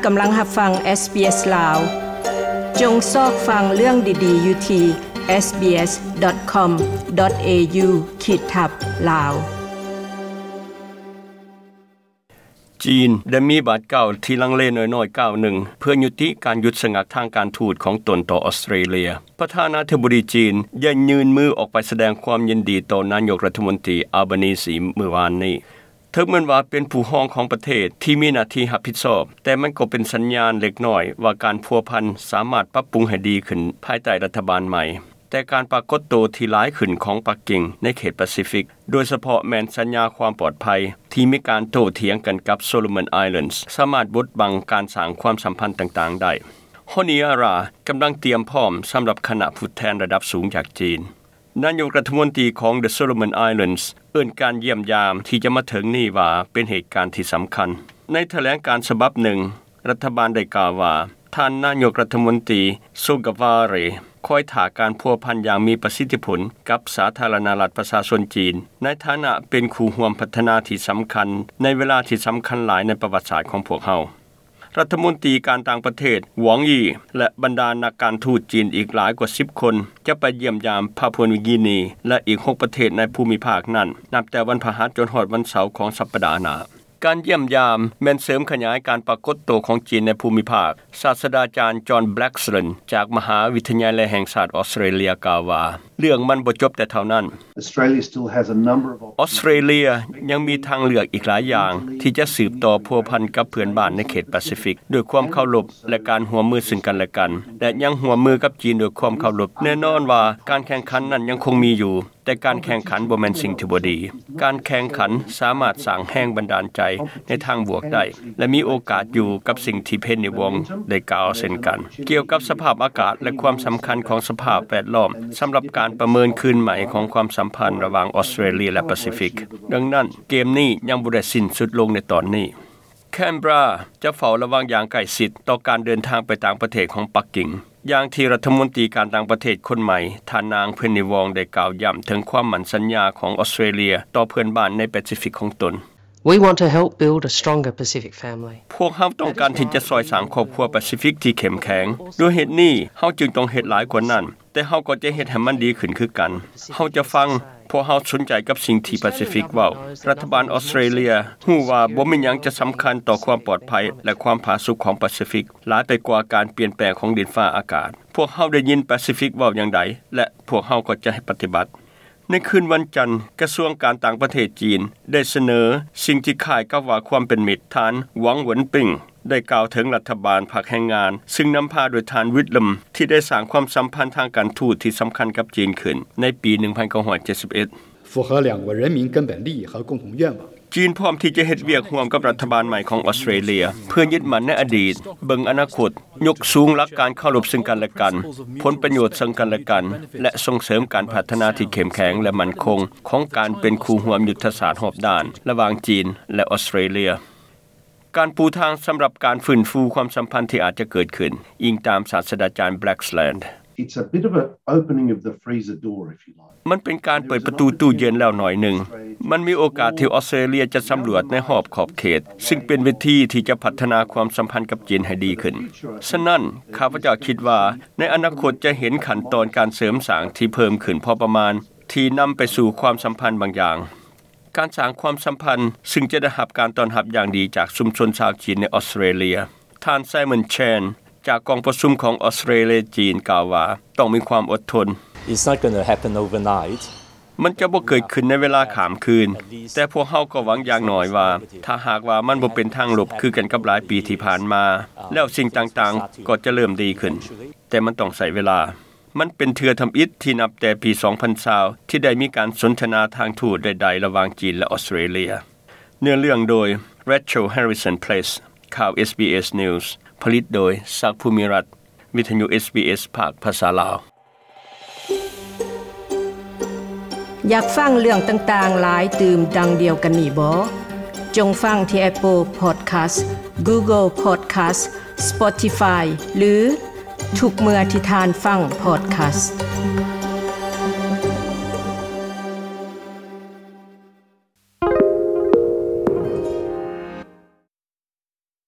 ກຳລັງຮັບຟັງ SBS ລາວ. ຈົ່ງຊອກຟັງເລື່ອງດີໆຢູ່ທີ່ SBS.com.au ຂີດທັບ ລາວ. ຈີນໄດ້ມີບາດກ້າວທີ່ລັງເລນ້ອຍໆກ້າວໜຶ່ງ ເພື່ອຍຸຕິການຢຸດສະງັກທາງການທູດຂອງຕົນຕໍ່ອອສເຕຣເລຍ. ປະທານາທິບໍດີຈີນໄດ້ຍື່ນມືອອກໄປສະແດງຄວາມຍິນດີຕໍ່ນາຍົກລັດຖະມົນຕີ Albanese ມື້ວານນີ້. ເຖິງແມ່ນວ່າເປັນຜູ້ຮອງຂອງປະເທດທີ່ມີໜ້າທີ່ຮັບຜິດຊອບ, ແຕ່ມັນກໍເປັນສັນຍານເລັກນ້ອຍວ່າການພົວພັນສາມາດປັບປຸງໃຫ້ດີຂຶ້ນພາຍໃຕ້ລັດຖະບານໃໝ່. ແຕ່ການປາກົດໂຕທີ່ຫຼາຍຂຶ້ນຂອງປັກກິ່ງໃນເຂດປາຊີຟິກ, ໂດຍສະເພາະແມ່ນສັນຍາຄວາມປອດໄພທີ່ມີການໂຕ້ຖຽງກັນກັບ Solomon Islands ສາມາດບົດບັງການສ້າງຄວາມສຳພັນຕ່າງໆໄດ້. Honiara ກຳລັງຕຽມພ້ອມສຳລັບຄະນະຜູ້ແທນລະດັບສູງຈາກຈີນ. ນາຍົກລັດຖະມົນຕີຂອງ The Solomon Islands ເອີ້ນການຢ້ຽມຢາມທີ່ຈະມາເຖິງນີ້ວ່າເປັນເຫດການທີ່ສຳຄັນ. ໃນຖະແຫຼງການສະບັບໜຶ່ງ, ລັດຖະບານໄດ້ກ່າວວ່າ ທ່ານນາຍົກລັດຖະມົນຕີ Sogavare ຄອຍຖ້າການພົວພັນຢ່າງມີປະສິດທິຜົນກັບສາທາລະນະລັດປະຊາຊົນຈີນ ໃນຖານະເປັນຄູ່ຮ່ວມພັດທະນາທີ່ສຳຄັນໃນເວລາທີ່ສຳຄັນຫຼາຍໃນປະຫວັດສາດຂອງພວກເຮົາ. ລັດຖະມົນຕີການຕ່າງປະເທດ Wang Yi ແລະ ບັນດານັກການທູດຈີນອີກຫຼາຍກວ່າສິບຄົນ ຈະໄປຢ້ຽມຢາມປາປົວນິວກີນີ ແລະ ອີກຫົກປະເທດໃນພູມິພາກນັ້ນ ນັບແຕ່ວັນພະຫັດຈົນຮອດວັນເສົາຂອງສັບປະດາໜ້າ. ການຢ້ຽມຢາມແມ່ນເສີມຂະຫຍາຍການປາກົດໂຕຂອງຈີນໃນພູມິພາກ. ສາດສະດາຈານ John Blaxland ຈາກມະຫາວິທະຍາໄລແຫ່ງຊາດອອສເຕຣເລຍ ກ່າວວ່າ ເລື່ອງມັນບໍ່ຈົບແຕ່ເທົ່ານັ້ນ. Australia still has a number of ອອສເຕຣເລຍຍັງມີທາງເລືອກອີກຫຼາຍຢ່າງທີ່ຈະສືບຕໍ່ພົວພັນກັບເພື່ອນບ້ານໃນເຂດປາຊີຟິກ ດ້ວຍຄວາມເຄົາລົບ ແລະ ການຮ່ວມມືເຊິ່ງກັນແລະກັນ ແລະ ຍັງຮ່ວມມືກັບຈີນດ້ວຍຄວາມເຄົາລົບ. ແນ່ນອນວ່າການແຂ່ງຂັນນັ້ນຍັງຄົງມີຢູ່, ແຕ່ການແຂ່ງຂັນບໍ່ແມ່ນສິ່ງທີ່ບໍ່ດີ. ການແຂ່ງຂັນສາມາດສ້າງແຮງບັນດານໃຈໃນທາງບວກໄດ້ ແລະ ມີໂອກາດຢູ່ກັບສິ່ງທີ່ Penny Wong ໄດ້ກ່າວເຊັ່ນກັນ ກ່ຽວກັບສະພາບອາກາດ ແລະ ຄວາມສຳຄັນຂອງສະພາບແວດລ້ອມ ສຳລັບການປະເມີນຄືນໃໝ່ຂອງຄວາມສຳພັນລະຫວ່າງອອສເຕຣເລຍ ແລະ ປາຊີຟິກ. ດັ່ງນັ້ນ, ເກມນີ້ຍັງບໍ່ໄດ້ສິ້ນສຸດລົງໃນຕອນນີ້. Canberra ຈະເຝົ້າລະວັງຢ່າງໃກ້ຊິດຕໍ່ການເດີນທາງໄປຕ່າງປະເທດຂອງປັກກິ່ງ, ຢ່າງທີ່ລັດຖະມົນຕີການຕ່າງປະເທດຄົນໃໝ່ ທ່ານນາງ Penny Wong ໄດ້ກ່າວຢ້ຳເຖິງຄວາມໝັ້ນສັນຍາຂອງອອສເຕຣເລຍຕໍ່ເພື່ອນບ້ານໃນປາຊີຟິກຂອງຕົນ. We want to help build a stronger Pacific family. ພວກເຮົາຕ້ອງການທີ່ຈະຊ່ອຍສ້າງຄອບຄົວປາຊີຟິກທີ່ເຂັ້ມແຂງ. ດ້ວຍເຫດນີ້, ເຮົາຈຶ່ງຕ້ອງເຮັດຫຼາຍກວ່ານັ້ນ, ແຕ່ເຮົາກໍຈະເຮັດໃຫ້ມັນດີຂຶ້ນຄືກັນ. ເຮົາຈະຟັງ, ພວກເຮົາສົນໃຈກັບສິ່ງທີ່ປາຊີຟິກເວົ້າ. ລັດຖະບານອອສເຕຣເລຍຮູ້ວ່າບໍ່ມີຫຍັງຈະສຳຄັນຕໍ່ຄວາມປອດໄພ ແລະ ຄວາມຜາສຸກຂອງປາຊີຟິກ ຫຼາຍໄປກວ່າການປ່ຽນແປງຂອງດິນຟ້າອາກາດ. ພວກເຮົາໄດ້ຍິນປາຊີຟິກເວົ້າຢ່າງໃດ ແລະ ພວກເຮົາກໍຈະປະຕິບັດ. ໃນຄືນວັນຈັນ, ກະຊວງການຕ່າງປະເທດຈີນໄດ້ສະເໜີສິ່ງທີ່ຄ້າຍກັບວ່າຄວາມເປັນມິດ. ທ່ານ ຫວັງ ຫວັນປິງ ໄດ້ກ່າວເຖິງລັດຖະບານພັກແຮງງານ, ຊຶ່ງນຳພາໂດຍທ່ານ ວິດລຳ ທີ່ໄດ້ສ້າງຄວາມສຳພັນທາງການທູດທີ່ສຳຄັນກັບຈີນຂຶ້ນໃນປີໜຶ່ງພັນເກົ້າຮ້ອຍເຈັດສິບເອັດ. 符合两国人民根本利益和共同愿望。 ຈີນພ້ອມທີ່ຈະເຮັດວຽກຮ່ວມກັບລັດຖະບານໃໝ່ຂອງອອສເຕຣເລຍ ເພື່ອຍຶດໝັ້ນໃນອະດີດ, ເບິ່ງອະນາຄົດ, ຍົກສູງຫຼັກການເຄົາລົບເຊິ່ງກັນແລະກັນ, ຜົນປະໂຫຍດເຊິ່ງກັນແລະກັນ ແລະ ສົ່ງເສີມການພັດທະນາທີ່ເຂັ້ມແຂງ ແລະ ໝັ້ນຄົງຂອງການເປັນຄູ່ຮ່ວມຍຸດທະສາດຮອບດ້ານລະຫວ່າງຈີນ ແລະ ອອສເຕຣເລຍ. ການປູທາງສຳລັບການຟື້ນຟູຄວາມສຳພັນທີ່ອາດຈະເກີດຂຶ້ນ, ອີງຕາມສາດສະດາຈານ Blaxland. It's a bit of an opening of the freezer door, if you like. ມັນເປັນການເປີດປະຕູຕູ້ເຢັນແລ້ວໜ້ອຍໜຶ່ງ. ມັນມີໂອກາດທີ່ອອສເຕຣເລຍຈະສຳຫຼວດໃນຮອບຂອບເຂດ, ຊຶ່ງເປັນເວທີທີ່ຈະພັດທະນາຄວາມສຳພັນກັບຈີນໃຫ້ດີຂຶ້ນ. ສະນັ້ນ, ຂ້າພະເຈົ້າຄິດວ່າໃນອະນາຄົດຈະເຫັນຂັ້ນຕອນການເສີມສ້າງທີ່ເພີ່ມຂຶ້ນພໍປະມານ ທີ່ນຳໄປສູ່ຄວາມສຳພັນບາງຢ່າງ. ການສ້າງຄວາມສຳພັນ, ຊຶ່ງຈະໄດ້ຮັບການຕ້ອນຮັບຢ່າງດີຈາກຊຸມຊົນຊາວຈີນໃນອອສເຕຣເລຍ. ທ່ານ Simon Chan ຈາກກອງປະຊຸມຂອງອອສເຕຣເລຍ-ຈີນ ກ່າວວ່າ ຕ້ອງມີຄວາມອົດທົນ. It's not gonna happen overnight. ມັນຈະບໍ່ເກີດຂຶ້ນໃນເວລາຂ້າມຄືນ, ແຕ່ພວກເຮົາກໍຫວັງຢ່າງໜ້ອຍວ່າ ຖ້າຫາກວ່າມັນບໍ່ເປັນທາງລົບຄືກັນກັບຫຼາຍປີທີ່ຜ່ານມາ, ແລ້ວສິ່ງຕ່າງໆກໍຈະເລີ່ມດີຂຶ້ນ. ແຕ່ມັນຕ້ອງໃຊ້ເວລາ. ມັນເປັນເທື່ອທຳອິດທີ່ນັບແຕ່ປີສອງພັນຊາວ ທີ່ໄດ້ມີການສົນທະນາທາງທູດໃດໆລະຫວ່າງຈີນ ແລະ ອອສເຕຣເລຍ. ເນື້ອເລື່ອງໂດຍ Rachel Harrison Place. ຂ່າວ SBS News ຜະລິດໂດຍ ສັກ ພູມິລັດ, ວິທະຍຸ SBS ພາກພາສາລາວ. ຢາກຟັງເລື່ອງຕ່າງໆຫຼາຍຕື່ມດັ່ງດຽວກັນນີ້ບໍ? ຈົ່ງຟັງທີ່ Apple Podcast, Google Podcast, Spotify ຫຼື ທຸກເມື່ອທີ່ທ່ານຟັງ podcast.